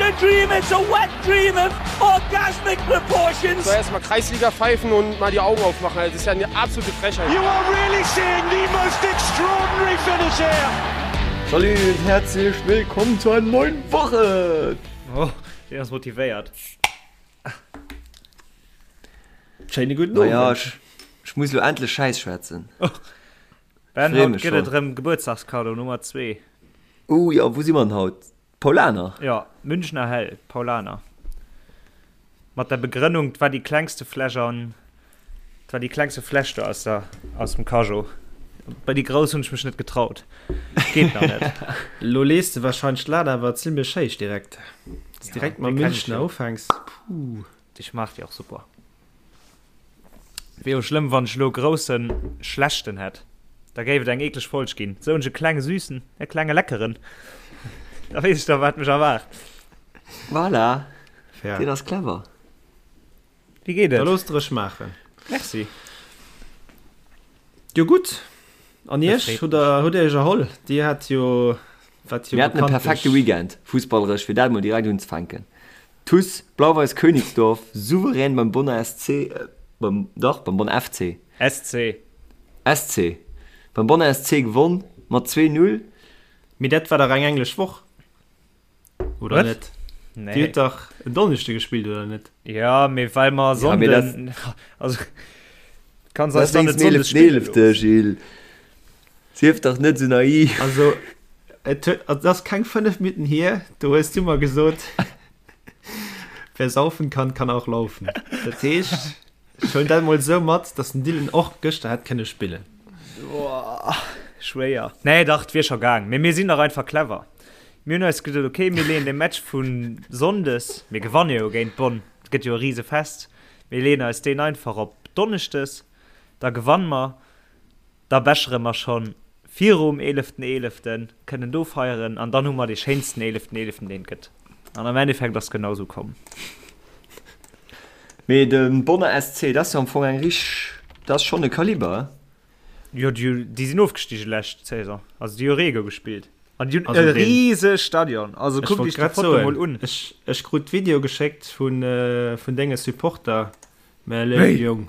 a dream, it's a wet dream of orgasmic proportions. So erstmal Kreisliga pfeifen und mal die Augen aufmachen. Also, das ist ja eine absolute Frechheit. You are really seeing the most extraordinary finish here. Salut und herzlich willkommen zu einer neuen Woche! Oh, deen ass motivéiert. Schéine guten Naja, Owend. ech, ech muss lo endlech Schäiss schwätzen. Ben, Free haut mech gëtt et schon. erëm Gebuertsdagskado Nummer 2. Oh jo, wou si mer denn haut? Paulaner? Jo, Münchner Hell, Paulaner. Mat der Begrënnung, 't war déi klengste Fläsch an, 't war déi klengste Fläsch do aus der, aus dem Cajot. Bei déi grouss hunn ech mech net getraut. Geet nach net. Lo lees de wahrscheinlech d'Lat awer zimlech héich direkt. Dass Ja, direkt mam déi kenn ech Münchner jo. ufänks, puh. Déi schmaacht jo och super. Wier jo schlëmm wann ech elo e groussen schlechten hätt, da géif et eng eekleg Folg ginn. Sou hunn ech e klenge süßen, e klenge leckeren, da weess ech da wat mech erwaart. Voilà, Fair. deen ass clever. Wéi geet Da et? looss der ech maachen. Merci. Jo gutt, an Dat iech? freet Hutt mech. der hutt dir iech erholl? Dir hat jo, wat jo Mir haten e bekanntlech. perfekte Weekend, fussballeresch, fir dat mol direkt unzefänken. TuS Blau-Weiß Königsdorf souverän beim Bonner SC, beim, dach, beim Bonner FC. SC. SC. Beim Bonner SC gewonn mat 2, 0. Mee dat war dach eng englesch Woch, oder Wat? net? Nee. Dir hutt dach en Donneschde gespillt, oder net? Ja, mee well mer Ja, mee dat- Sonnden, also kanns Dat eis dann ass net wéinst dem Sonndes spille 11.11., loossen. Gilles. Sief dach net sou naiv. Also, et huet, also, dat ass keng 5 Minutten hier, do hues du mer gesot, Wer saufen kann, kann auch laufen. Dat heescht, ech huelen dat mol esou mat, dass den Dylan och gëschter hätt kënne spillen. Boah, schwéier. Nee, dach, 't wier scho gaang. Mee mir sinn dach einfach clever. Mir hunn eis gesot, okay, mir leeën de Match vu Sonndes, mir gewanne jo géint Bonn, et gëtt jo e Risefest, mir leeën eis deen einfach op Donneschdes, da gewanne mer. Da bechere mer schonn virum eeleften eeleften, kënnen do feieren an dann hu mer dee schéinsten eeleften eeleften deen et gëtt. An am Endeffekt ass genau sou komm. Mee de Bonner SC, dat ass jo am Fong eng richteg, dat ass schonn e Kaliber, he? Jo, déi, déi sinn ofgestige lescht Saison, also déi hu Rego gespillt an déi hunn Also e deen- rise Stadion. Also Ech kuckt wollt iech déi grad Foto soen, mol un. ech, ech krut d'Video geschéckt vun, vun denge Supporter, mä léif Wéi? Jong,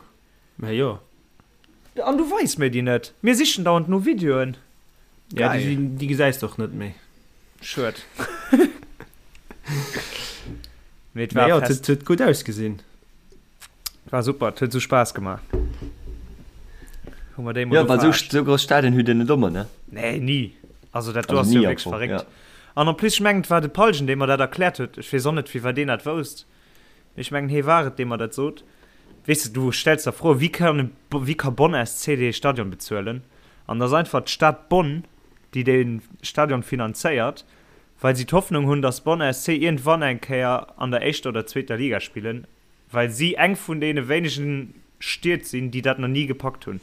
mä jo. An du weis mir déi net. Mir sichen dauernd no Videoen. Ja, déi, déi gesäis de och net méi. Schued. Mee et war Naja, fest. et huet gutt ausgesinn. War super, et huet sou Spaass gemaach. Hu mer déi mol Ja, well sou, verarscht. sou grouss Stadien hutt Dir net ëmmer, ne? Nee, ni. Also dat do Also ass jo ni am wierklech Fong, verréckt. ja. An en plus, ech mengen, et war de Palgen, dee mer dat erkläert huet. Ech weess och net, firwat deen dat wousst. Ech mengen hee war et dee mer dat sot. Weess de, du stells der Fro, wéi kann, wéi ka Bonn SC dee Stadion bezuelen? An et ass einfach d'Stad Bonn, déi dee Stadion finanzéiert, well si d'Hoffnung hunn, datt Bonn SC iergendwann eng Kéier an der éischter oder zweeter Liga spillen, well si eng vun deene wéinegen Stied sinn, déi dat nach ni gepackt hunn.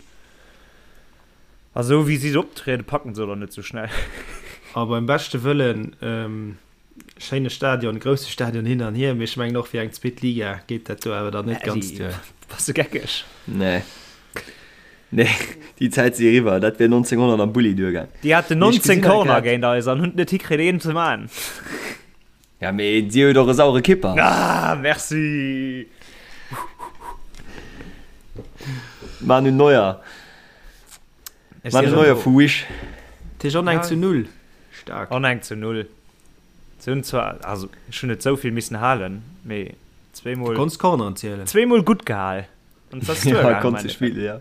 A sou wéi si optrieden, packen se et och net sou schnell. A beim beschte Wëllen, Schéine Stadion, grousse Stadion hin an hier, mee ech mengen och fir eng zweet Liga geet dat do awer dann net ganz duer. Bass de geckeg? Nee. Nee, déi Zäit si eriwwer. Dat wier 1900 am Bulli duergaang. Déi haten 19 Corner géint eis an hunn et net hikritt een ze man. Ja mee dir hutt och e sauere Kipper. Ah, merci! Manu Neuer. Manu Neuer vu Wish. Dat heescht on eng zu null. Staark. On eng zu null. Se hunn zwar, also ech hunn net esou vill missen halen, mee zweemol. Du konns Corneren zielen. Zweemol gutt gehal. An et ass duergaangen. Ja, konns de spillen, ja.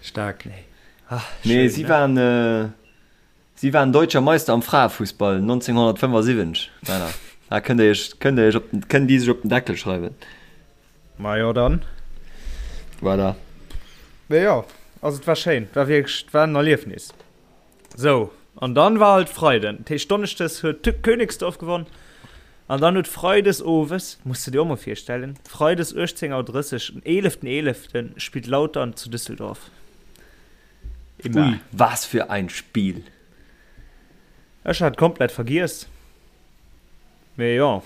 Staark. Nee. Ah, Nee, schön, si ne? waren, si waren Deutscher Meister am Fraefussball 1975, Männer. Da kënnt Dir Iech, kënnt Dir Iech op den, kënnen déi sech op den Deckel schreiwen. Majo dann. Voilà. Mee jo, also et war schéin, et war wierklech, et war en Erliefnis. Sou, an dann war halt Freiden, dat heescht Donneschdes huet Königsdorf gewonn an dann huet Freides owes, muss de dir och mol virstellen, Freides 18 Auer 30, den 11. 11. spillt Lautern zu Düsseldorf. Immer. Ui, was für ein Spiel! Ech hat komplett vergiess. Mee jo,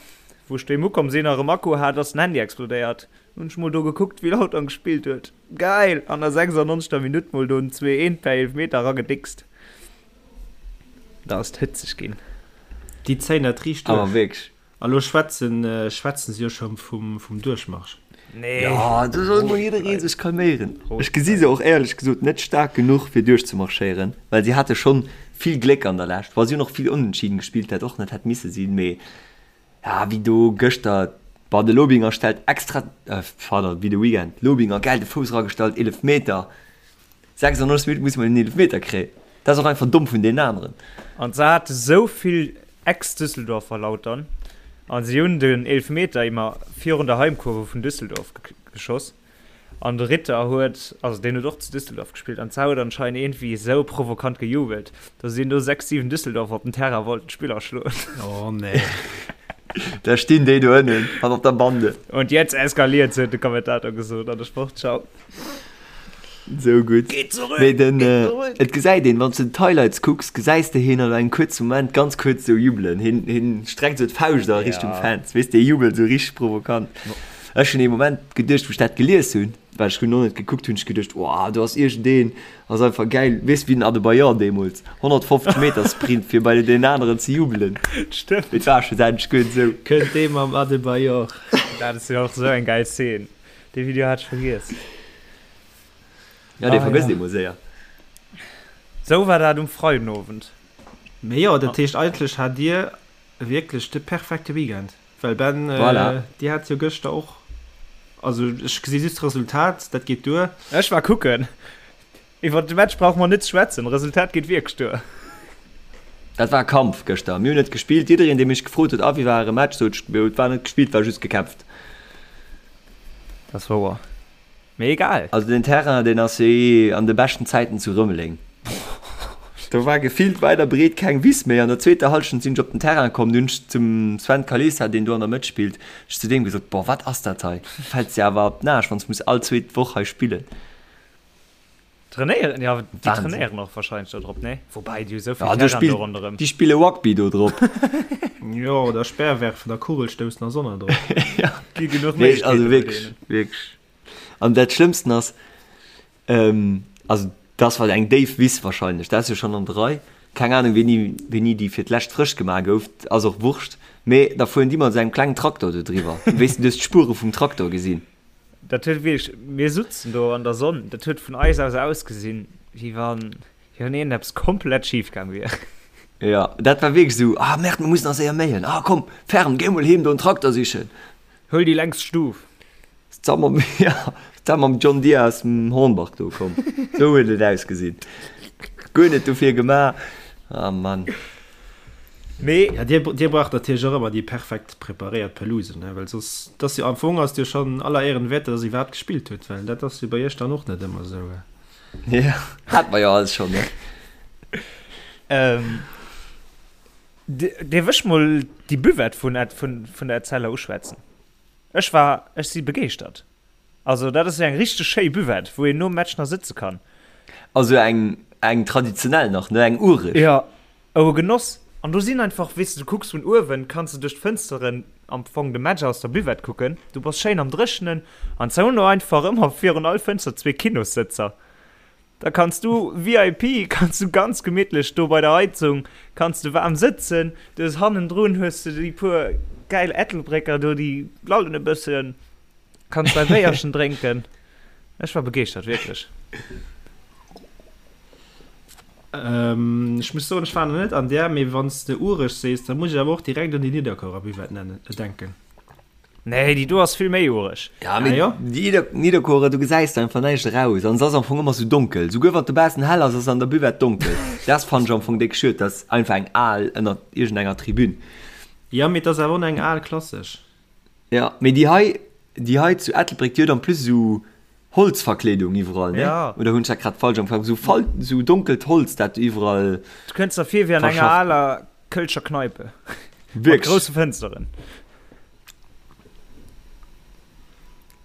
wou ech doheem ukomm sin a rem Akku hat, ass den Handy explodéiert. Hun ech mol do gekuckt wéi Lautern gespillt huet. Geil! An der 96. Minutt mol do en 2, 1 per Eelfmeter eragedickst. Da ass et hëtzeg gin. Déi zéien dat riicht duerch. Awer wierklech. A lo schwätzen, schwätzen se jo scho vum, vum Duerchmarsch. Nee. Jo, do soll mol jidderee sech calméieren. Ech gesi se och éierlech gesot net staark genuch fir duerchzemarschéieren, well si hate schonn vill Gléck an der Lescht. Bon, si hunn och vill Onentschieden gespillt, dat och net hätt misse sinn, mee ja, wéi do gëschter, bon, de Lobinger stellt extra, pardon, wéi de Weekend, Lobinger gäil de Fouss eragestallt, Eelefmeter, 96 Minutten muss mol en Eelefmeter kréien. Dat ass och einfach domm vun deenen aneren. An se hate sou vill Ex-Düsseldorfer Lautern an si hunn den Eelefmeter immer virun der Heimkurve vun Düsseldorf geschoss. An de Ritter huet, also deen huet och zu Düsseldorf gespillt, an zwar huet anscheinend iergendwéi esou provokant gejubelt, datt een do 6, 7 Düsseldorfer op den Terrain wollten d'Spiller schloen. Oh nee. Da stinn déi do ënnen an op der Bande. Und jetzt eskaliert's, huet de Kommentator gesot an der Sportschau. Sou gutt. Geht zurück! Mee den, Geht zurück! et gesäit een, wann s du d'Highlights kucks, gesäis de hien an engem kuerze Moment ganz kuerz sou jubelen. Hien, hien streckt sou d'Fauscht a Richtung Ja. Fans, weess de, hie jubelt sou richteg provokant. Ech hunn ee Moment geduecht, wou ech dat gelies hunn, well ech hunn och net gekuckt, hunn ech geduecht, Wow, do ass iergendeen, ass einfach gäil, weess wéi den Adebayor deemools, 150 Meter Sprint fir bei deen aneren ze jubelen. Stëmmt. Et war schlussendlech guer net esou. Kënnt dee mam Adebayor. Dat ass jo och esou eng gäil Szene. Dee Video hat ech vergiess. Ja, dee Ah, vergësst ja. ee mol séier. Sou war dat um Freidenowend. Mee jo, dat heescht eigentlech hat dir wierklech de perfekte Weekend. Well Ben, Voilà. dir hat jo gëschter och, also ech gesi just d'Resultat, dat geet duer. Ech war kucken. Iwwer de Match brauche mer net ze schwätzen, Resultat geet wierklech duer. Dat war e Kampf gëschter. Mir hunn net gespillt. Jiddereen, dee mech gefrot huet, a wéi war äre Match, sot ech, et war net gespillt, war just gekämpft. Dat ass wouer. Mee egal. Also den Terrain, deen ass jo eh an de beschten Zäiten zu Rëmeleng. Do war gefillt weit a breet keng Wiss méi. An der zweeter Hallschent sinn ech op den Terrain komm, du hunn ech zum Sven Kalisa, deen do an der Mëtt spillt, ech zu deem gesot, Boah, wat ass dat hei? Fäls de awer op den Aarsch, wann s muss all zweet Woch hei spillen. Trainéieren, ja, déi Wahnsinn. trainéieren och wahrscheinlech do drop, nee? Woubäi, déi hu sou vill Ja, do Terrain do spillt, ronderëm. déi spille Rugby do drop. Jo, oder Speerwerfen a Kugelstoussen ass och nach drop. Ja. Gi genuch Nee, also Méiglechkeete bei wierklech, deenen. wierklech. An dat Schlëmmsten ass, ähm, also das war eng déif Wiss wahrscheinlech, dat ass jo schonn an der Rei, keng Ahnung wéini, wéini déi fir d'lescht frësch gemaach gouf, ass och Wurscht, mee da fueren déi mat esou engem klengen Traktor do driwwer, wéis de, du hues d'Spuere vum Traktor gesinn. Dat huet wierklech, mir sutzen do an der Sonn, dat huet vun eis aus ausgesinn, wéi wann, wéi wann iergendeppes komplett schif gaang wier. Jo, dat war wierklech esou, ah merde, mir mussen nach séier méien, ah komm, Fern, géi mol heem do en Trakter sichen. Huel déi längst Stuf. Zesammen mam, ja, zesammen mam John Deere aus dem Hornbach do komm. Esou huet et ausgesinn. Guer net dofir gemaach. Ah Mann. Mee. Ja, dir, dir braucht natierlech och ëmmer déi perfekt preparéiert Pelouse, ne, well soss, et ass jo, am Fong ass et jo schonn aller Ehren wäert, dass der iwwerhaapt gespillt hutt, well dat ass jo bei iech dann och net ëmmer esou. Ja, hat mer jo alles schonn, ne? Ähm, dierf ech mol déi Buvette vun, vun, vun der Etzella uschwätzen? Ech war, ech si begeeschtert. Also dat ass jo eng richteg schéi Buvette, wou een nom Match nach sëtze kann. Also eng, eng traditionell nach, ne, eng ureg. Jo, oh e Genoss. An do sinn einfach, weess de, du kucks vun uewen, kanns de duerch d'Fënsteren am Fong de Match aus der Buvette kucken. Du bass schéin am Dréchenen an se hunn do einfach ëmmer virun all Fënster zwee Kinossëtzer. Da kanns du VIP, kanns du ganz gemittlech do bei der Heizung, kanns de waarm sëtzen. Du hues hannendrun hues de déi puer gäil Ettelbrécker do, déi lallen e bëssen. Kanns dei Béierchen drénken. Ech war begeeschtert, wierklech. Ech muss soen, ech war nach net an där, mee wann s de ureg sees, da muss ech awer och direkt un déi Nidderkuerer Buvette nennen, denken. Nee, déi do ass vill méi ureg. Ja, mee Ah jo? déi Nidderkuerer, do gesäis de einfach näischt eraus an se ass am Fong ëmmer sou donkel. Souguer wann et dobaussen hell ass, ass an der Buvette donkel. Dat fannen ech am Fong déck schued, dat ass einfach eng al ënnert iergendenger Tribün. Jo, mee et ass awer och eng al klassesch. Ja, mee déi hei, déi hei zu Ettelbréck, déi huet en plus esou Holzverkleedung iwwerall, ne? Ja. Oder hunn ech dat grad falsch am Kapp? Esou fal-, esou donkelt Holz, dat du iwwerall Du kënns der vir wéi an enger verschafft. aler kölscher Kneipe. Mat Wierklech. grousse Fënsteren.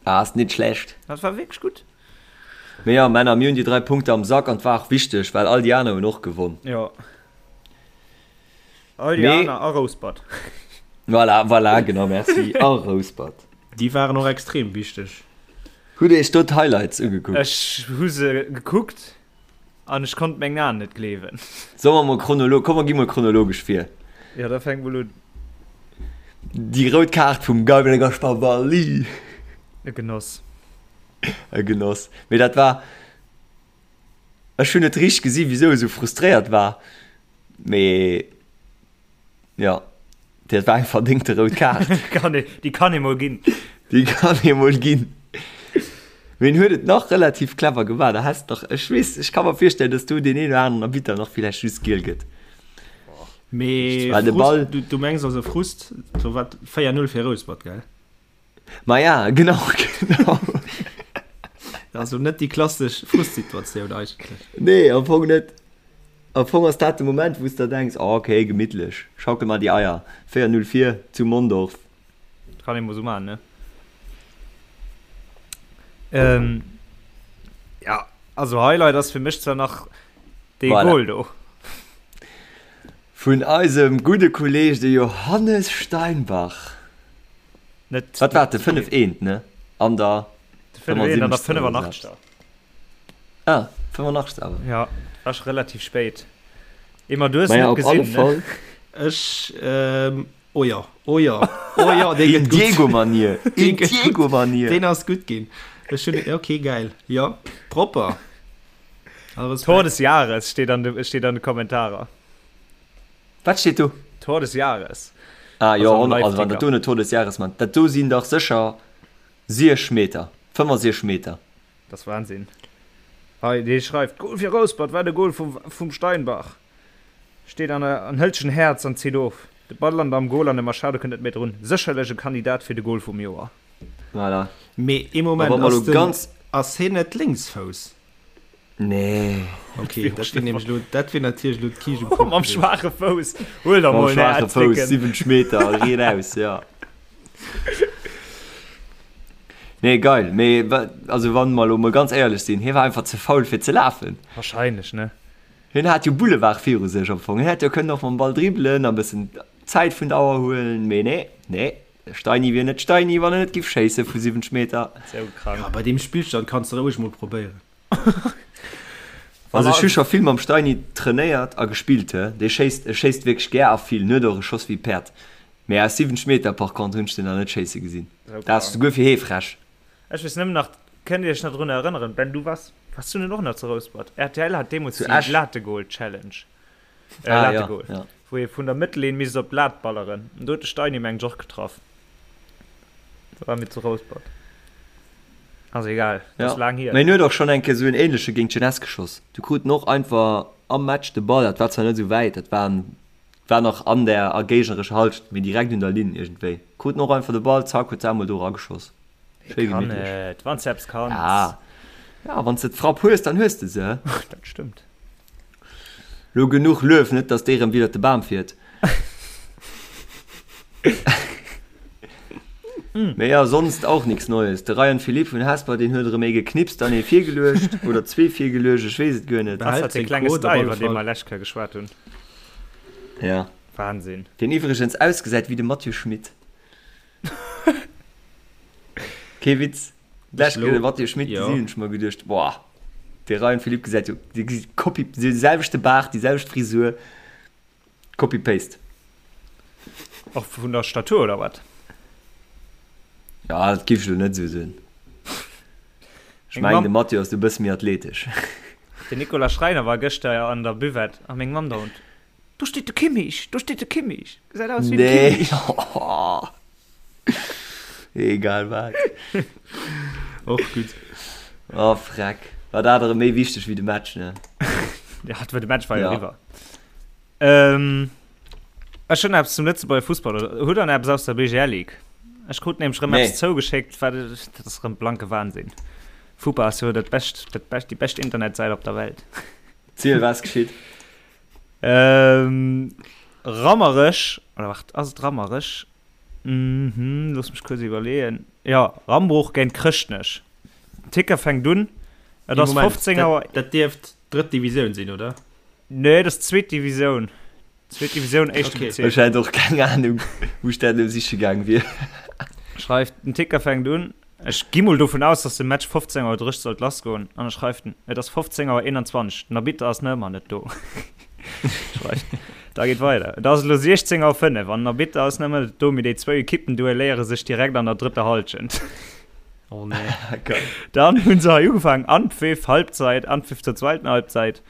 Ah, ass nit schlecht. Dat war wierklech gutt. Mee ja, Männer, mir hunn déi 3 Punkte am Sack an 't war och wichteg, well all déi aner hunn och gewonn. Jo. All déi Mee. aner a Rouspert. Voilà, voilà, genau, merci. A Rouspert. Déi waren och extrem wichteg. Hutt Dir Iech do d'Highlights ugekuckt? Ech hu se gekuckt an ech konnt mengen Aen net gleewen. Solle mer mol chronolo-, komm mer gi mol chronologesch vir. Jo, da fänk mol un. Déi rout Kaart vum Gabriel Gaspar Valli. E Genoss. E Genoss. Mee dat war, ech hunn net richteg gesi wisou e sou frustréiert war, mee jo, dat war eng verdéngte rout Kaart. Kann ee, déi kann ee mol ginn. Déi kann ee mol ginn. Mee en huet et nach relativ clever gemaach, da häss nach, ech weess, ech ka mer virstellen, dass do deen een oder aneren Arbitter nach villäicht just giel gëtt. Mee Well de Ball. Du, du mengs also Frust, do war 4-0 fir Rouspert, gell? Ma ja, genau, genau. Also net déi klassesch Frustsituatioun eigentlech. Nee, am Fong net. Am Fong ass dat de Moment, wou s der denks, oh, okay, gemittlech, schaukel mar déi Eier, 4-0 vir zu Mondorf. Kann ee mol sou maachen, ne? Ähm, ja, also Highlight ass fir mech zwar nach dee Voilà. Goal do. Vun eisem gudde Kolleg, de Johannes Steinbach. Net Wat war et, de 5 eent, ne? An der de 5 eent an der 75. oder 85. Ah, 85 awer. Ja, war scho relativ spéit. Emma, du hues Maja, net op alle gesinn, ne? Fall. Ech, ähm, oh jo, oh jo, oh jo, dee In gëtt gutt. Diego-Manier, Dee in gëtt gutt. Diego-Manier. Deen ass gutt ginn. Ech hunn, okay, geil. Jo, propper. All Respekt. Tor des Jahres steet an de, steet an de Kommentarer. Wat steet do? Tor des Jahres. Ah jo, Also am also wann dat Live-Ticker. do net Tor des Jahres man, dat do sinn dach sécher 6 Meter, 65 Meter. Dat ass Wahnsinn. Hei, dee schreift, Goal fir Rouspert, wat e Goal vum, vum Steinbach. Steet an der, an hëlt sech en Häerz an zitt of. De Ball lant am Goal an de Machado kënnt net méi drun. Sécherlech e Kandidat fir de Goal vum Joer. Voilà. Mee ee A Moment, wa mer ass elo den, ganz. ass hien net Lénksfouss? Nee. Okay, dat wier nämlech elo, dat wier natierlech elo d'Kiischt um Kuch Mam gewiescht. schwaache Fouss. Huel der Mam mol, ne, schwaache Fouss, Dicken. 70 Meter, riet aus, ja. Nee, geil. Mee wa, also wann mer elo mol ganz éierlech sinn, hie war einfach ze faul fir ze lafen. Wahrscheinlech, ne? Hien hat jo Boulevard viru sech am Fong. Hien hätt jo kënnen och mam Ball dribbelen a bëssen Zäit vun der Auer huelen, mee nee, nee. De Steini wier net Steini, wann en net giff schéisse vu 70 Meter. Sou krank. Ja, bei deem Spillstand kanns de roueg mol probéieren. Also ech hu scho vill mam Steini trainéiert a gespillt, he. Dee schéisst, e schéisst wierklech gär a vill, en huet och e Schoss wéi e Päerd. Mee aus 70 Meter par contre hunn ech den nach net schéisse gesinn. Sou Dat ass krank. souguer fir hee frech. Ech weess nëmmen nach, kënnt dir iech nach drun erënneren, Ben, du waars, waars du net och nach zu Rouspert? Rtl hat deemools Zu déi Esch. Lategoal-Challenge. Äh, Ah, ja, Lategoal. ja. Wou ee vun der Mëttellinn misst op d'Lat balleren. An do huet de Steini meng ech och getraff. Da war mir zu Rouspert. Ass egal, Ja. ass laang hier. Mä hien huet och schonn eng Kéier esou en ähnleche géint d'Jeunesse geschoss. Du krut en och einfach am Match de Ball, dat war zwar net esou wäit, dat war, war nach an der a géignerescher Halschent, mee direkt un der Linn iergendwéi. Krut en och einfach de Ball, zack, huet se emol do erageschoss. Schéi Kann gemittlech. et, wann s de eppes kanns. Ja, ja, wann s de d'Frapp hues, dann hues de se. Dat stëmmt. Lo genuch Luef, net dass dee rem widder de Bam fiert. Mee ja, sonst auch nix Neues. De Ryan Philippe vun Hesper, deen huet erëm ee geknipst an ee virgeluecht, oder zwee virgeluecht, ech weess et guer net. Das Behält hat dee seng klenge Quote op Style, alle iwwer dee Fall. mer lescht Kéier geschwat hunn. Ja. Wahnsinn. Deen iwwregens ausgesäit wéi de Mathieu Schmit. Kee Witz. D'lescht Kéier de Mathieu Schmit gesinn, hunn ech mer geduecht, boah, de Ryan Philippe gesäit jo, dee gesäit Copy, dee selwechte Baart, déi selwecht Frisur, Copy Paste. Och vun der Statur oder wat? Ja, dat géif ech elo net esou soen. Ech Meng mengen, Mamm. de Mathieu ass do e bësse méi athletesch. Den Nicolas Schreiner war gëschter an der Buvette a meng Mamm dauernd, Do steet de Kimmich, do steet de Kimmich, gesäit aus wéi de Nee. Kimmich. Egal wat. Och gutt. Oh freck. War dat erëm méi wichteg wéi de Match, ne? Ja, de Match war jo Ja. eriwwer. Ähm, ech hunn eppes zum Lëtzebuerger Fussball. Oder hutt der eppes aus der BGL League? Ech krut nämlech rëm Nee. eppes zougeschéckt, wat dat ass rëm blanke Wahnsinn. Fupa ass jo dat bescht, dat bescht, déi bescht Internetsäit op der Welt. Ziel, was geschitt? Ähm, Rammerech, oder waart, ass et Rammerech? Mhm, looss mech kuerz iwwerleeën. Jo, Rambruch géint Chrëschtnech. Den Ticker fänkt un, et ass 15 Auer. Dat dierft drëtt Divisioun sinn, oder? Nee, dat ass zweet Divisioun. Zweet Divisioun, éischte Okay. Bezierk. Ech hätt och keng Anung, wou ech dat elo siche gaang wier. Schreift, den Ticker fänkt un. Ech gi mol dovun aus, dass de Match 15 Auer 30 sollt lassgoen. An e schreift en, et ass 15 Auer 21, den Arbitter ass nach ëmmer net do. Schreift. Da geet weider. Et ass elo 16 Auer 5 an den Arbitter ass nach ëmmer net do, mee déi zwou Ekippen duelléiere sech direkt an der drëtter Hallschent. Oh nee. Geil. Dann hunn se hei ugefaangen, Anpfiff, Halbzeit, Anpfiff zur zweiten Halbzeit.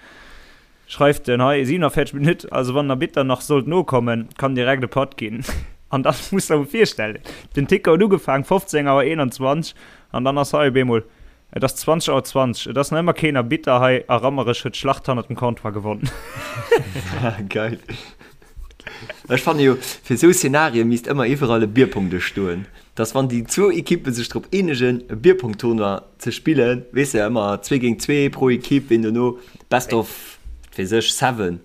Schreift en hei 47 Minutt, also wann den Arbitter nach sollt nokommen, kann direkt e Patt ginn. An dann muss der mol virstellen, den Ticker huet ugefaangen 15 Auer 21 an dann ass hei op eemol, et ass 20 Auer 20, et ass nach ëmmer keen Arbitter hei a Rammerech huet d'Schlacht hannert dem Comptoir gewonnen. Geil. Ech fanne jo, fir esou Szenarien misst ëmmer iwwerall e Bierpongdësch stoen, dass wann déi zwou Ekippe sech drop eenegen e Bierpongtournoi ze spillen, weess de, ëmmer zwee géint zwee pro Ekipp, ween dono best of, wat weess ech, seven.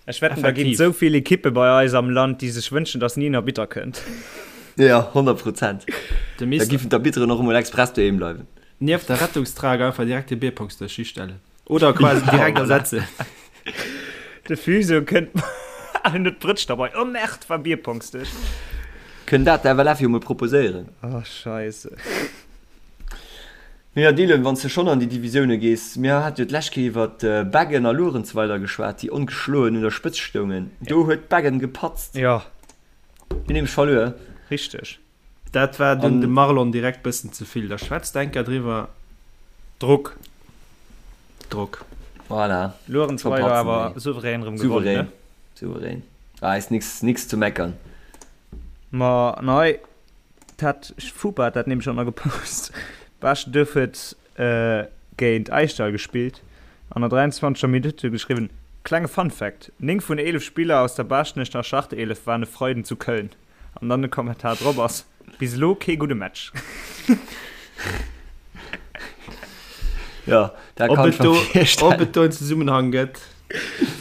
Ech wetten, da ginn et esou vill Ekippe bei eis am Land, déi sech wënschen, dass ni en Arbitter kënnt. Jo, 100 Prozent. Da giffen d'Arbitteren och emol express doheem bleiwen. Nieft der Rettungstrage einfach direkt e Bierpongsdësch histellen. Oder quasi direkt ersetzen. De Fuso kënnt an huet d'Brëtsch derbei. Oh Merde, war Bierpongsdësch. Kënnt dat der FLF jo mol proposéieren. Oh Scheisse. Mee jo Dylan, wann s de schonn an déi Divisioune gees, mir hate jo d'lescht Kéier iwwer Beggen a Luerenzweiler geschwat, déi ongeschloen un der Spëtzt stoungen. Do huet Beggen gepatzt. Jo. Hunn nämlech verluer. Richteg. Dat war dunn dem Marlon direkt bëssen ze vill. Da schwätzt enker driwwer. Drock. Drock. Voilà. Luerenzweiler awer souverän erëm gewonnen, ne? Souverän. Souverän. Ah, ist nix, nix zu meckern. Ma nei, dat Fupa hat dat nämlech och nach gepost. Baaschtduerf huet géint Aischdall gespillt. An der 23. Minutt huet geschriwwen, Klenge Fun Fact, 9 vun 11 Spiller aus der Baaschtnecher Startelef waren e Freiden zu Köln. An dann de Kommentar drop ass, Bis elo kee gudde Match. Ja, dat Ob kann et ech mer do, virstellen. ob et do en Zesummenhang gëtt,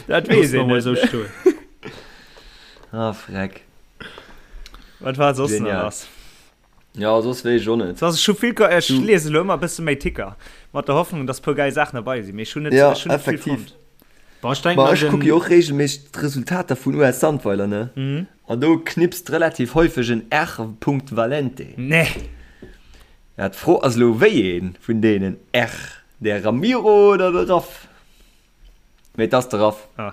Dat weess loosse mer een mol net. esou stoen. Ah, freck. Wat war soss nach Genial. lass? Ja, soss weess ech och net. Soss, ech hu vill, ech Du. liese elo ëmmer e bësse méi Ticker, mat der Hoffnung, dass e puer gäil Saachen derbei sinn, mee ech hunn net, Ja, ech hunn net vill effektiv. fonnt. Bon, ech denken Ma an ech kucke den. jo och reegelméisseg d'Resultater vun US Sandweiler, ne? Mhm. An do knipst relativ häufeg en R. Valente. Nee. Ja, d'Fro ass elo, wéi ee vun deenen R, de Ramiro oder de Raff? Mee et ass de Raff. Ah.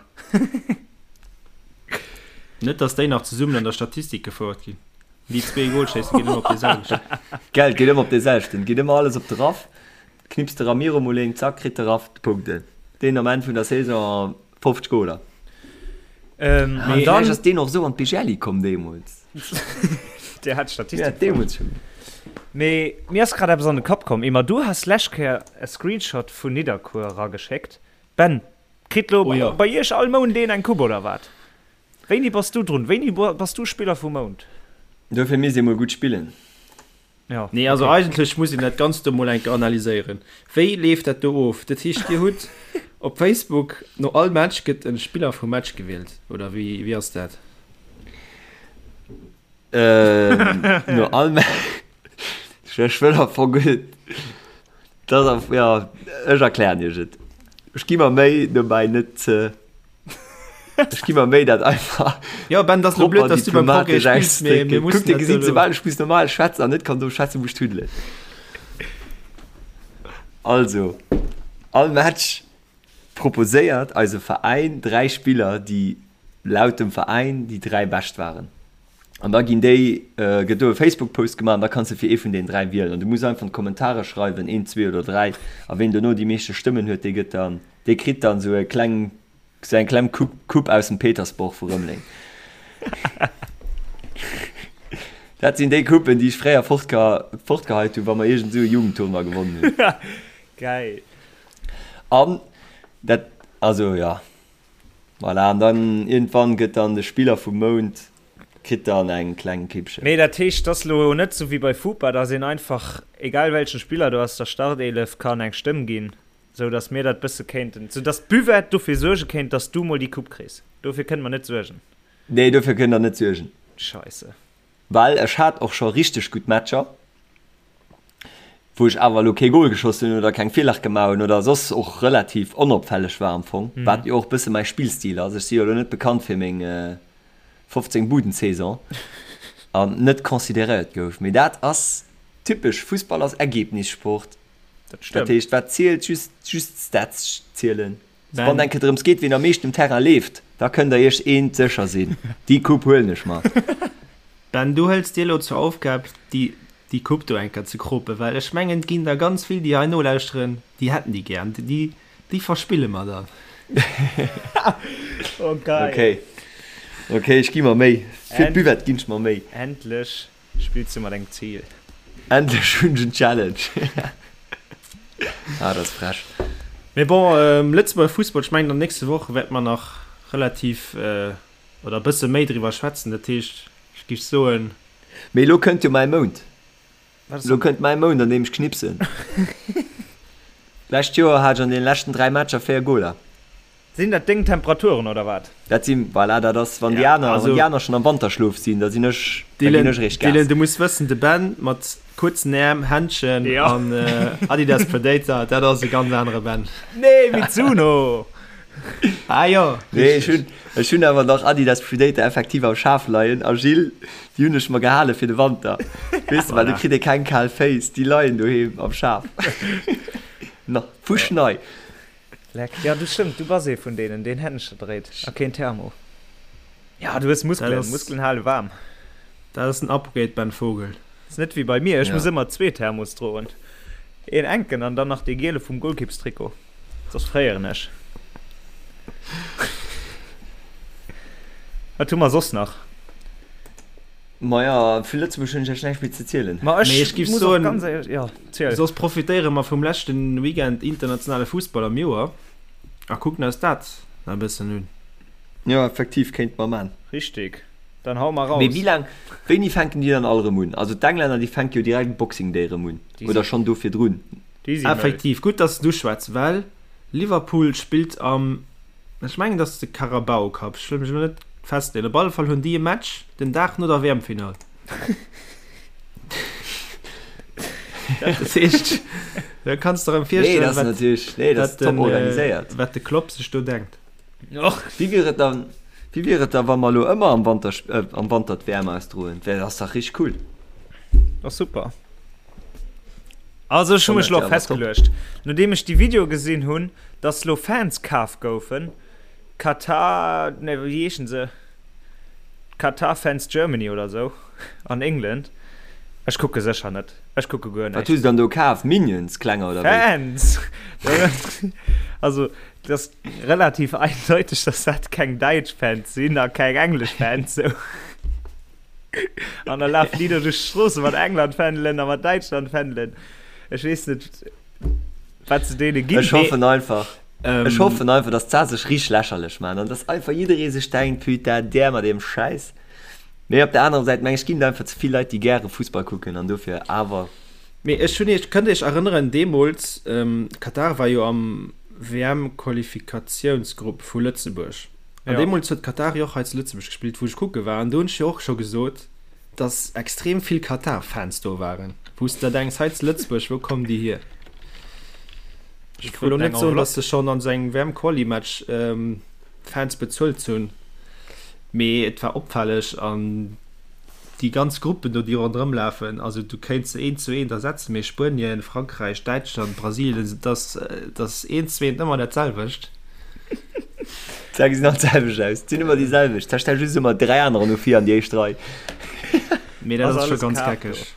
Net dass déi nach zesummen an der Statistik gefouert ginn. Déi zwee Golschéissen ginn ëmmer op dee selwechten. Gell, geet ëmmer op dee selwechten. Geet ëmmer alles op de Raff. Knipst de Ramiro mol een, zack, kritt de Raff d'Punkten. Deen am Enn vun der Saison 50 Goler. Ähm, An an dann ass deen och esou an d'Bigelli komm deemools. Der hat Statistik. Ja, deemools schon. Mee mir ass grad eppes an de Kapp komm. Emma, du has lescht Kéier e Screenshot vun Nidderkuer erageschéckt. Ben, kritt lo Oh ja. bei iech all Mount een eng Coupe oder wat? Wéini bass du drun? Wéini bass du Spiller vum Mount? Dofir misst ee mol gutt spillen. Ja, Nee, also okay. eigentlech muss een dat Ganzt do mol eng Kéier analyséieren. Wéi leeft dat do of? Dat heescht, Dir hutt op Facebook no all Match gëtt e Spiller vum Match gewielt, oder wéi, wéi ass dat? Ähm, no all Match. Ech wëll am Fong guer net. Dat ass, ja, ech erklären Iech et. Ech gi mer Méi dobäi net ze. Ech gi mer Méi dat einfach. Jo Ben, dat ass lo blöd, dass du beim Progrès spills, mee mir mussen Kuck, dir gesitt, soubal ech muss normal schwätzen an net kann do schwätzen, wou ech tuddelen. Also, all Match proposéiert eise Veräin 3 Spiller, déi laut dem Veräin déi 3 bescht waren. An da ginn déi, gëtt do e Facebook-Post gemaach an da kanns de fir ee vun deenen 3 wielen. An du muss einfach an d'Kommentare schreiwen, een, zwee oder 3. A ween dono déi meeschte Stëmmen huet, dee gëtt dann, dee kritt dann esou e kleng, esou eng kleng Coupe, Coupe aus dem Petersborg vu Rëmeleng. Dat sinn déi Coupen, déi ech fréier fortge, fortgeheit hunn, wa mer iergend esou e Jugendtournoi gewonnen hunn. Geil. An dat, also jo, voilà, an dann iergendwann gëtt dann de Spiller vum Mount, kritt dann eng kleng Kippchen. Mee dat heescht, et ass lo net sou wéi bei Fupa, dass een einfach, egal welchen Spiller do aus der Startelef, kann eng Stëmm ginn, sou dass mir dat bësse kéinten, sou dass d'Buvette dofir suerge kéint, dass du mol déi Coupe kriss. Dofir kënne mer net suergen. Nee, dofir kënnt der net suergen. Scheisse. Well ech hat och scho richteg gutt Matcher, wou ech awer elo kee Gol geschoss hunn oder keng Virlag gemaach hunn oder soss och relativ onopfälleg war am Fong, wat jo och e bësse mäi Spillstil ass. Ech si jo elo net bekannt fir meng 15 Buden-Saison an net consideréiert gouf. Mee dat ass typesch, Fussball ass Ergebnissport. Dat Dat stëmmt. heescht, wat zielt? Just, just d'Stats zielen. Wann eng Kéier drëms geet, wien am meeschten um Terrain leeft, da kënnt der iech eent sécher sinn, déi Coupe huelen ech mer. Ben, du hëls dir elo zur Aufgab, déi déi Coupe do eng Kéier ze kropen, well ech mengen, et ginn der ganz vill, déi hei nolauschteren, déi hätten déi gär an déi, déi verspille mer dann. Oh geil. Okay, okay, ech gi mer Méi. Fir d'Buvette ginn ech mer Méi. Endlech Spills du mat engem Zil? Endlech hunn ech en Challenge! Ah, dat ass frech. Mee bon, Lëtzebuerger Fussball, ech mengen an den nächste Woche wäerte mer nach relativ oder e bësse méi driwwer schwätzen. Dat heescht, ech géif soen. Mee elo kënnt jo mäi Mount. Elo kënnt mäi Mount, an deem ech knipsen. D'lescht Joer hat ech an deene leschten 3 Matcher 4 Goler. Sinn dat deng Temperaturen oder wat? Dat sinn, voilà, dat ass, wann déi aner, wann déi aner schonn am Wanterschlof sinn, da sinn ech, da ginn ech eréischt Gas. Dylan, du muss wëssen, de Ben mat kuerzen Äerm, Händschen an Adidas Predator, dat ass e ganz anere Ben. Nee, Mizuno! Ah jo, Nee, ech hunn, ech hunn awer nach Adidas Predator effektiv am Schaf leien a Gilles, déi hunn ech mer gehale fir de Wanter. Weess de, well do kritt ee keng kal Féiss, déi leien doheem am Schaf. Nach fuschnei. Leck, jo du stëmmt, du bass ee vun deenen deen Händcher dréit a keen Thermo. Ja du hues Muskelen, Muskelen hale waarm. Dat ass den Upgrade Ben Vogel. Ass net wéi bei mir, ech muss ëmmer zwee Thermos droen, een enken an dann nach dee giele vum Golkippstrikot, soss fréieren ech. Wat hu mer soss nach? Maja, vu Lëtzebuerg hunn ech iech näischt méi ze zielen. Ma ech Mee ech giff muss och soen, ganz éierlech, jo, ziel. soss profitéiere mer vum leschten Weekend internationale Fussball am Joer a kucken eis dat nach e bëssen un. Jo, effektiv, kéinte mer man. Richtig, dann hau mer Mee raus. wéi laang, wéini fänken déi dann all erëm un? Also d'Englänner, déi fänke jo direkt Boxing Day erëm un, Déi oder si, schonn do virdrun? déi si mëll. Effektiv, gutt, dass s de uschwätz, well Liverpool spillt am Ech mengen et ass de Carabao Cup, ech wëll mech elo net festleeën. Op alle Fall hunn déi e Match den Dag no der WM-Finall. Dat heescht, da kanns de der erëm Nee, dat virstellen, ass wat, natierlech, nee, dat ass wat top den, äh, organiséiert. wat de Klopp sech do denkt. Och. Wéi wier et dann, wéi wier et da wa mer elo ëmmer am Wanter, äh, am Wanter d'WM ausdroen? Wär, dat ass dach richteg cool. Ass super. Also ech hu mech lo Kommt, ja, aber top. festgeluecht, nodeem ech déi Video gesinn hunn, dass lo Fans kaf goufen, Qatar, ne wéi heeschen se, Qatar Fans Germany oder sou an England, ech kucke sécher net, ech kucke guer Wat hu näischt. se dann do kaf? Minions klenger oder wéi? Fans! Also et ass relativ eindeuteg, dass dat keng däitsch Fans sinn a keng englesch Fans sou. An da lafen déi do duerch d'Stroosse mat England-Fändelen a mat Däitschland-Fändelen. Ech weess net, wat se deene ginn. Ech hoffen einfach, Ähm, ech hoffen einfach, dass d'Saach sech richteg lächerlech maachen an dass einfach jidderee sech denkt, Putain, där mat deem Schäiss. Mee op der anerer Säit meng ech, ginn et einfach ze vill Leit, déi gäre Fussball kucken an dofir awer. Mee ech hunn iech, kënnt iech erënneren, deemools, ähm, Katar war jo am WM-Qualifikatiounsgrupp vu Lëtzebuerg. An Ja. deemools huet Katar jo och hei zu Lëtzebuerg gespillt, wou ech kucke war. An do hunn ech jo och scho gesot, dass extrem vill Katar-Fans do waren, wou s de der denks, hei zu Lëtzebuerg, wou kommen déi hier? Déi Ech wëll elo kruten net eng soen, dass Enveloppe. se schonn an esou engem WM-Quali-Match Fans bezuelt hunn, mee et war opfälleg. An déi ganz Gruppen do, déi ronderëm lafen, also du kéints se eent zu eent ersetzen, mee Spuenien, Frankräich, Däitschland, Brasilien, et ass, et ass eent zu eent ëmmer dat selwecht. D'Zäre gesinn all d'selwecht aus. Et sinn ëmmer déi selwecht. Da stell just ëmmer 3 anerer no vir an déi éischt Rei. Mee dat Ass ass scho alles ganz kaf do. geckeg.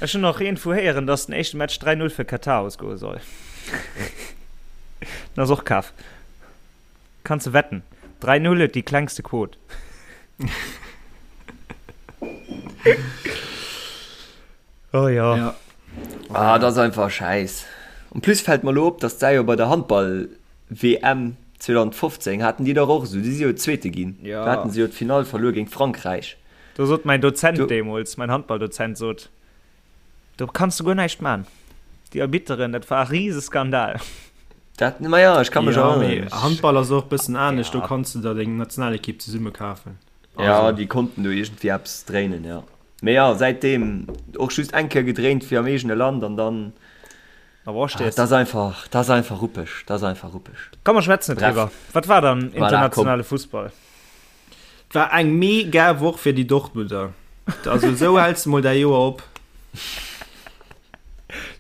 Ech hunn och iergendwou héieren, dass den éischte Match 3, 0 fir Katar ausgoe soll. Den ass och kaf. Kanns de wetten. 3, 0 huet déi klengste Quot. Oh jo. Ja. Ah, dat ass einfach Schäiss. En plus fält mer elo op, dass d'Sä jo bei der Handball WM 2015 haten déi dach och esou, déi si jo Zweete ginn. Ja. Do haten se jo d'Finall verluer géint Frankräich. Do sot mäin Dozent Do. deemools, mäin Handballdozent sot, do kanns du guer näischt man. Déi Arbitteren, dat war e Riseskandal. Dat, ma ja, ech ka mech Ja, mee erënneren. Handball ass och e bëssen anescht, do Ja. kanns du der deng Nationalekipp zesumme kafen. Ja, Also. déi konnten do iergendwéi eppes dréinen, ja. Mee ja, säitdeem och just eng Kéier gedréint fir am eegene Land an dann. Dat ass einfach, dat ass einfach ruppeg, dat ass einfach ruppeg. Komm mer schwätzen net Bref. driwwer. Wat war dann Voilà, komm. internationale Fussball? Et war eng mega Woch fir déi Dortmunder. Also esou häls de mol däi Joer op.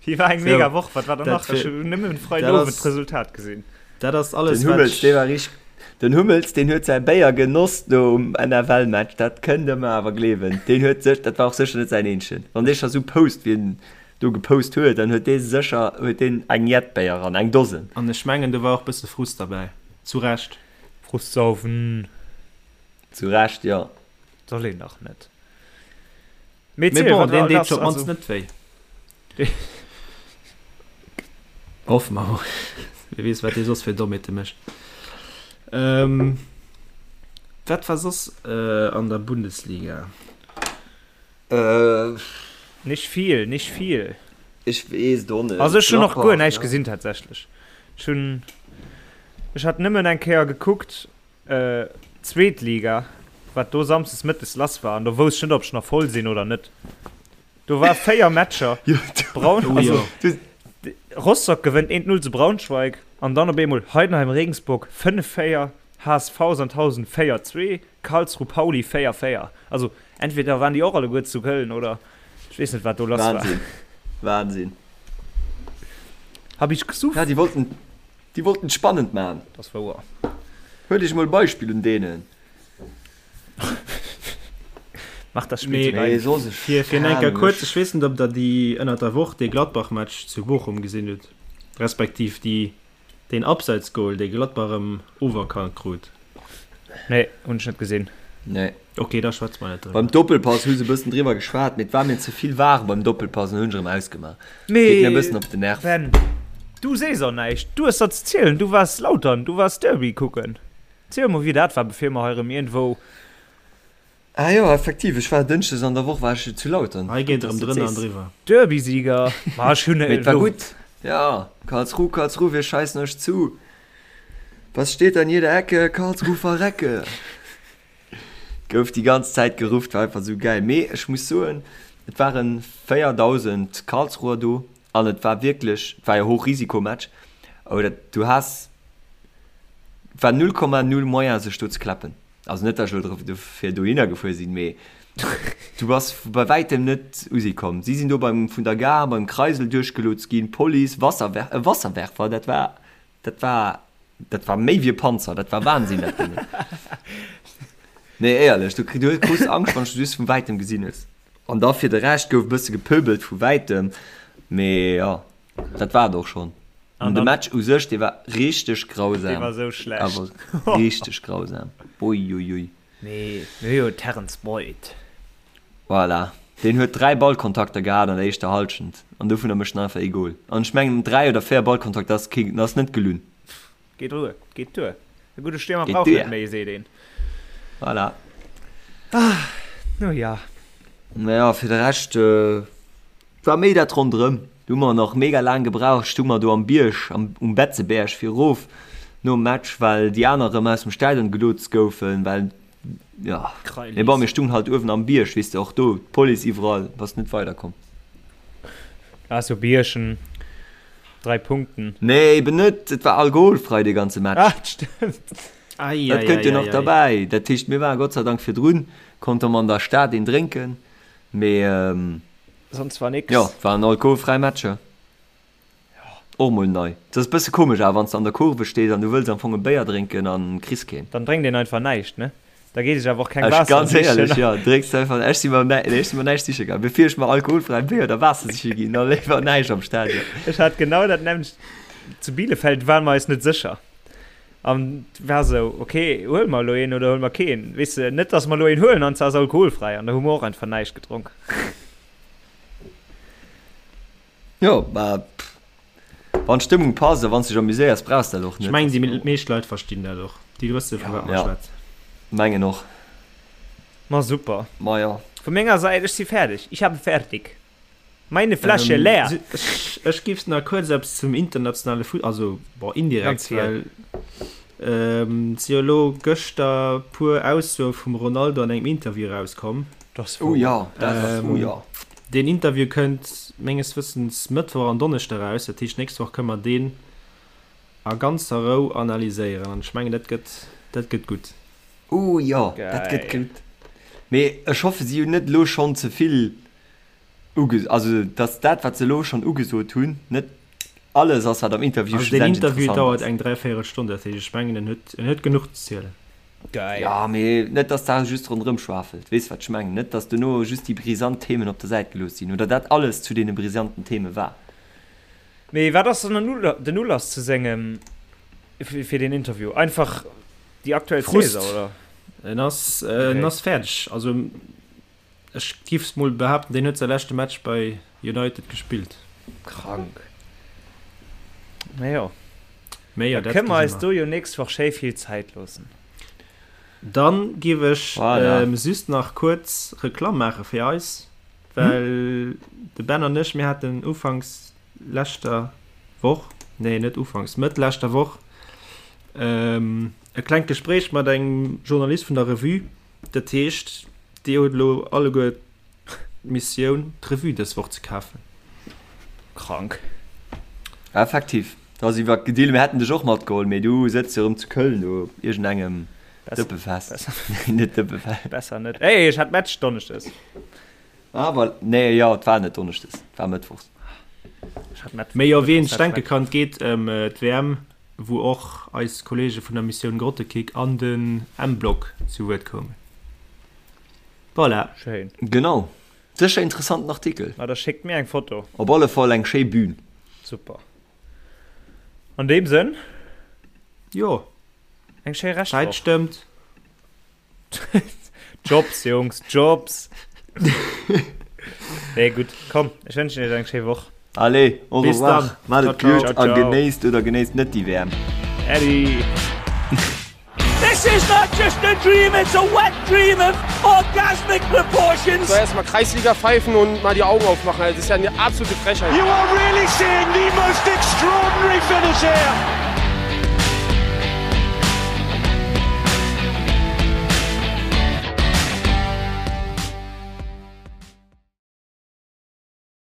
Déi war eng So, mega Woch. Wat war dann dat nach? Ech fir- hunn nëmmen dat Freidowend ass- d'Resultat gesinn. Dat ass alles, Den Hummels, dee war richteg. Den Hummels, deen huet säi Béier genoss do um NFL-Match, dat kënnt Der mer awer gleewen. Deen huet sech, dat war och sécher net säin eenzegen. Wann dee scho sou post, wéi en do gepost huet, dann huet dee sécher, huet deen eng jett Béier eran, eng Dosen. An ech mengen, do war och bësse Frust derbäi. Zu Recht. Frust saufen. Zu Recht, jo. Soll een dach net. Mee Mee bon, wat deen deet lass, jo op d'mannst also. net wéi. Hoffe mer mol. Wie weess, wat dee soss fir Dommheete mécht. Ähm, wat war soss äh, an der Bundesliga? Äh. Nicht viel, nicht viel. Ech weess et och net. Also ech hunn och guer Gladbach, näischt ja. gesinn tatsächlech. Ech hunn, ech hat nëmmen eng Kéier gekuckt, Zweet Liga, wat do samsdes mëttes lass war, an do wousst ech net, ob ech nach voll sinn oder net. Do war 4 Matcher. Braun, also, Rostock gewënnt 1-0 zu Braunschweig an dann op eemol Heidenheim Regensburg 5-4, HSV Sandhausen 4-2, Karlsruhe Pauli 4-4. Also entweder waren déi och alleguer zu Köln oder ech weess net wat do lass war. Wahnsinn, Wahnsinn. Hab ich gesuff. Ja, déi wollten Déi wollten et spannend man. Dat ass wouer. Huelt iech mol e Beispill un deenen. Mach das Spiel zu Nee, deinem. soss ech, Fir fir keng enker Ahnung, kuerz, ech. ech weess net ob der déi ënnert der Woch dee Gladbach-Match zu Bochum gesinn hutt, respektiv déi deen Abseitsgoal dee Gladbach erëm oferkannt krut. Nee, hunn ech net gesinn. Nee. Ok, da schwätze mer net driwwer. Beim Doppelpass hu se e bëssen driwwer geschwat, mee et war mir ze vill var beim Doppelpass an hunn ech erëm ausgemaach. Geet mir e bëssen op den Nerv. Ben, du sees och näischt. Du hues der ze zielen. Du waars Lautern, du waars Derby kucken. Ziel mol wéi dat war, bevir mer hei erëm iergendwou. Ah jo, effektiv, ech war Dënschdes an der Woch war ech zu Lautern. Hei geet erëm drënner an driwwer. Derby-Sieger. Ma ech hunn Mee et war gutt. Jo, Karlsruhe, Karlsruhe, wir scheißen euch zu. Was steht an jeder Ecke? Karlsruhe verrecke! Gouf déi ganz Zäit gerufft, war einfach sou gäil. Mee ech muss soen, et waren 4.000 Karlsruher do an et war wierklech, et war jo Hochrisikomatch, awer dat, du has, et war 0,0 Moyen sech do ze klappen. Also net, datt ech elo dofir dohinner gefuer sinn, mee du bass bei wäitem net u si komm. Si sinn do beim, vun der Gare beim Kreisel duerchgelotst ginn, Police, Wasserwer, e Wasserwerfer, dat war Dat war, dat war méi wéi e Panzer, dat war Wahnsinn, dat Ding. Nee, éierlech, du, du krus Angscht, wann s du just vun wäitem gesinn hues. An da fir de Rescht gouf e bësse gepöbelt vu wäitem, mee jo, dat war et och schonn. An de Match u sech, dee war richteg grausam. Dee war sou schlecht. Awer richteg grausam. Uiuiui. Mee mir hu jo Terence Boyd. Voilà. Deen huet 3 Ballkontakter gehat an der éischter Halschent an dovunner mécht en einfach ee Goal. An ech mengen 3 oder 4 Ballkontakter ass kee, ass net gelunn. Geet duer, geet duer. E gudde Stiermer Geet brauch duer. net méi, seet een. Voilà. No ja. Naja, fir de Rescht war méi dat ronderëm. Du hu mer nach mega laang gebraucht, stu mer do am Bierg, am, um Betzeberg fir erof nom Match, well déi aner erëm aus dem Stadion gelotst goufen, well, jo. Mee bon, mir stungen halt uewen am Bierg, weess de, och do d'Police iwwerall, bass net weiderkomm. Ah, sou Biergen, 3 Punkten. Nee, eben net, et war alkoholfrei dee ganze Match. Ah, stëmmt. Ei, Dat ei, kënnt jo ei, nach ei, ei. derbäi. Dat heescht, mir waren Gott sei Dank virdrun, konnte mer an der Stad een drénken, mee. Sonst war nix. Jo, waren alkoholfräi Matcher. Och mol nei. Et ass e bësse komesch awer, wann s de an der Kurve stees an du wëlls am Fong e Béier drénken an kriss keen. Dann drénkt een einfach näischt, ne? Da geet sech awer och keng Ech, Waasser ganz sichen. éierlech, jo, drénks du einfach, ech si mer näi, ech si mer näischt siche gaangen. Bevir ech mer alkoholfräi Béier oder Waasser siche ginn, da léiwer näischt am Stadion. Ech hat genau dat nämmlecht. Zu Bielefeld ware mer eis net sécher. An war sou, ok, huele mer elo een oder huele mer keen? Weess de, net dass mer elo een huelen an se ass alkoholfräi. An da hu mer och einfach näischt gedronk. Jo, mä wann d'Stëmmung passt a wann s dech amuséiers, brauchs de dat och Ech net. mengen, déi meescht Leit verstinn dat och. Déi wësse vu wat mer Ja, schwätzen. mengen och. Ma super. Ma jo. Vu menger Säit, ech si fäerdeg. Ich habe fertig. Meine Flasche leer. Ech, ech giff nach kuerz eppes zum internationale Fuss-, also bon, indirekt, Ganz viel. well et si jo elo gëschter puer Aussoe vum Ronaldo an engem Interview erauskomm. Dat ass Oh wouer. jo, dat ass, oh jo. Deen Interview kënnt menges Wëssens Mëttwoch an Donneschde eraus, dat heescht nächst Woch kënne mer deen a ganzer Rou analyséieren an ech mengen dat gëtt, dat gëtt gutt. Oh jo, dat gëtt Geil. gutt. Mee ech hoffe si hunn net elo schonn ze vill uge, also datt dat wat se elo schonn ugesot hunn net. Alles ass, wat am Interview Also deen schlussendlech Interview interessant dauert ass. eng dräivéierel Stonn, dat heescht ech mengen en huet en huet genuch ze zielen. Geil. Jo, mee net dass da just ronderëm schwafelt, weess wat ech mengen? Net dass dono just déi brisant Themen op der Säit gelooss sinn oder dat alles zu deene brisanten Theme war. Mee wat ass dann den Ulass zu sengem fir deen Interview? Einfach déi aktuell Frust. Saison, oder? En ass en ass fäerdeg. Also ech giff mol behaapten, deen huet säi leschte Match bei United gespillt. Krank. Mee jo. Mee jo, dat kënne mer eis do jo nächst Woch schéi vill Zäit loossen. Dann giff ech voilà. just nach kuerz Reklamm maache fir eis, well de Ben an ech, mir haten ufanks leschter Woch, nee net ufanks, Mëtt leschter Woch e klengt Gespréich mat engem Journalist vun der Revue. Dat heescht, dir hutt elo alleguer d'Missioun, d'Revue dës Woch ze kafen. Krank. Effektiv, da si mer gedealt. Mir hätten dech och matgeholl, mee du sëtz jo erëm zu Köln do op iergendengem Dëppefest. Nee, net Dëppefest. Besser net. Ey, ech hat Match donneschdes. Ah, voilà. Nee, jo, et war net donneschdes, et war mëttwochs. Ech hat Mëttwoch. Mee jo, wien sech denke kann, et geet ëm d'WM, wou och eis Kollege vun der Missioun Grottekick an den M-Block zu Wuert koumen. Voilà. Schéin. Genau. Sécher interessanten Artikel. Ma da schéckt mir eng Foto. Op alle Fall eng schéi Bühn. Super. An deem Sënn. Jo. Eng schéi Reschtwoch. Zäit stëmmt. Jobs, Jungs, Jobs. Nee, gutt, komm, ech wënschen iech eng schéi Woch. Allez, au Bis revoir. dann. Maat et gutt a genéisst oder genéisst net déi WM. Äddi. This is not just a dream, it's a wet dream of orgasmic proportions. So, erstmal Kreisliga pfeifen und mal die Augen aufmachen. Das ist ja eine absolute Frechheit. You are really seeing the most extraordinary finish here.